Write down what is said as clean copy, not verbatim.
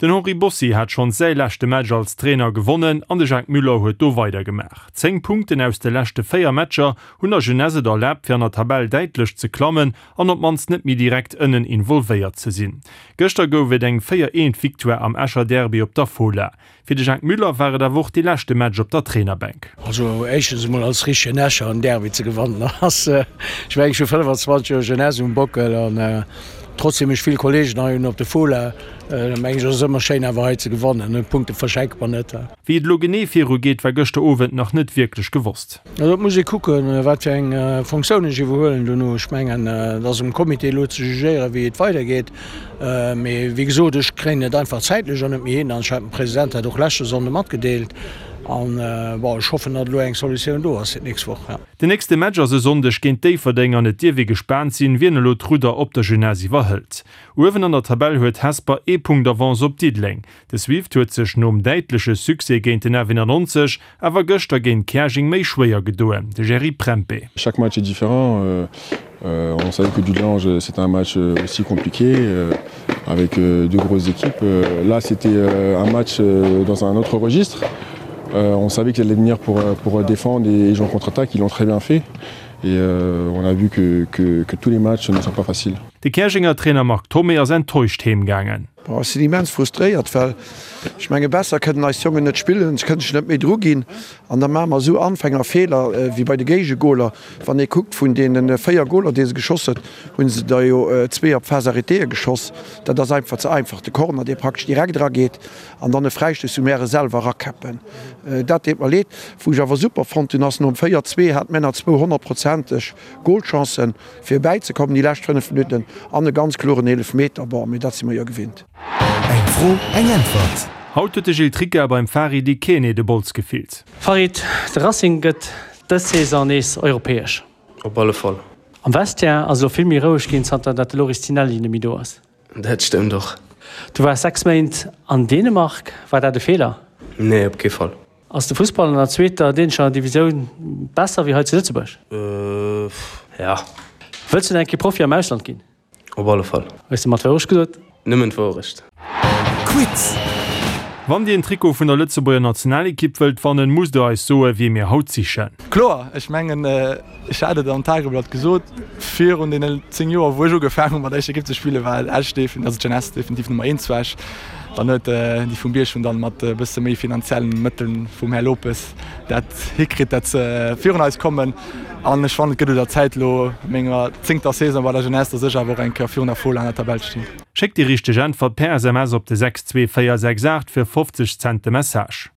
Den Henri Bossi hat schonns säi leschte Match als Trainer gewonnen an de Jacques Müller huet do weidergemaach. 10 Punkten aus de leschte 4 Matcher hunn der Jeunesse et erlaabt fir an der Tabell däitlech ze klammen an op d'mannst net méi direkt ënnen involvéiert ze sinn. Gëschter gouf et eng 4 eent Victoire am Escher Derby op der Fola. Fir de Jacques Müller war et awer och dee leschte Match op der Trainerbänk. Also éischtens emol als richtegen Escher en Derby ze gewannen ass, ech mengen ech hu 25 Joer Jeunesse um Bockel an trotzdem ech vill Kollegen hei hunn op de Fola, mengen ech ass et ëmmer schéin awer hei ze gewannen. Punkte verschenke mer net. Wéi et elo genee viru geet war gëschter Owend nach net wierklech gewosst. Also et muss ee kucken, wat fir eng Fonctioun ech iwwerhuelen dono. Ech mengen, et ass um Comité elo ze jugéieren, wéi et weidergeet. Mee wéi gesot, ech kréien et einfach zäitlech och net méi hin. An ech hat dem President dat och leschte Sonnde matgedeelt. An, bon, ech hoffen, datt elo eng Solutioun do ass fir d'nächst Woch. Den nächste Match ass e Sonndeg géint Déifferdeng an et dierf ee gespaant sinn, wien elo d'Rudder op der Jeunesse iwwerhëlt. Uewen an der Tabell huet Hesper ee Punkt Avance op Diddeleng. De Swift huet sech nom däitleche Succès géint den F91 awer gëschter géint Käerjeng méi schwéier gedoen, de Jerry Prempeh. Chaque match est différent, on savait que Dudelange c'était un match aussi compliqué avec deux grosses équipes. Là c'était un match dans un autre registre. On savait qu'ils allaient venir pour, pour défendre et jouer en contre-attaque, ils l'ont très bien fait et on a vu que, que, que tous les matchs ne sont pas faciles. De Käerjenger Trainer Marc Thomé ass enttäuscht heemgaangen. Bon, ech sinn immens frustréiert, well ech menge besser kënnen eis Jongen net spillen, se kënnen sech net méi dru ginn an da maache mer esou Anfängerfeeler wéi bei de Géigegoler. Wann ee kuckt, vun deene 4 Goler, déi se geschoss huet, hu se der jo zwee op Phase arrêtéë geschoss. Dat ass einfach ze einfach. De Corner, dee praktesch direkt erageet an dann e Fräistouss, wou mär e selwer erakäppen. Dat deet mer leed. Wou ech awer super fonnt hunn, ass nom 4, 2 hat mär nach zwou honnertprozenteg Golchancen. Fir bäizekommen déi lescht 5 Minutten an e ganz kloren Eelefmeter, bon, mee dat si mer jo gewinnt. Eng Fro, eng Äntwert. Haut huet de Gilles Tricca beim Farid Ikene de Bols gefillt. Farid, de Racing gëtt dës Saison nees europäesch. Op alle Fall. Am Vestiaire ass elo vill méi roueg ginn, zanter dat de Loris Tinelli net méi do ass. Dat stëmmt och. Du waars 6 Méint an Dänemark, war dat e Feeler? Nee, op kee Fall. Ass de Fussball an der zweeter dänescher Divisioun besser wéi hei zu Lëtzebuerg? Ja. Wëlls du nach eng Kéier Profi am Ausland ginn? Op alle Fall. Hues de mer d'Wourecht gesot? Nëmmen d'Wourecht. Quiz! Wann dir en Trikot vun der Lëtzebuerger Nationalekipp wëllt wannen, musst der eis soen, wie mir haut sichen. Kloer, ech mengen, ech hat et am Tageblatt gesot, virun deenen 10 Joer, wou ech ugefaangen hu mat der éischter Ekipp ze spillen, war Esch definitiv, also d'Jeunesse definitiv Nummer eent zu Esch. Dann huet déi vum Bierg hunn dann mat e bësse méi finanziellen Mëtteln vum Här Lopes dat hikritt, dat se virun eis kommen. An ech fannen, et gëtt un der Zäit elo, a menger zéngter Saison bei der Jeunesse, dass ech awer och eng Kéier virun der Fola an der Tabell stinn. Schéckt déi richteg Äntwert per SMS op de 62468 fir 50 Cent de Message.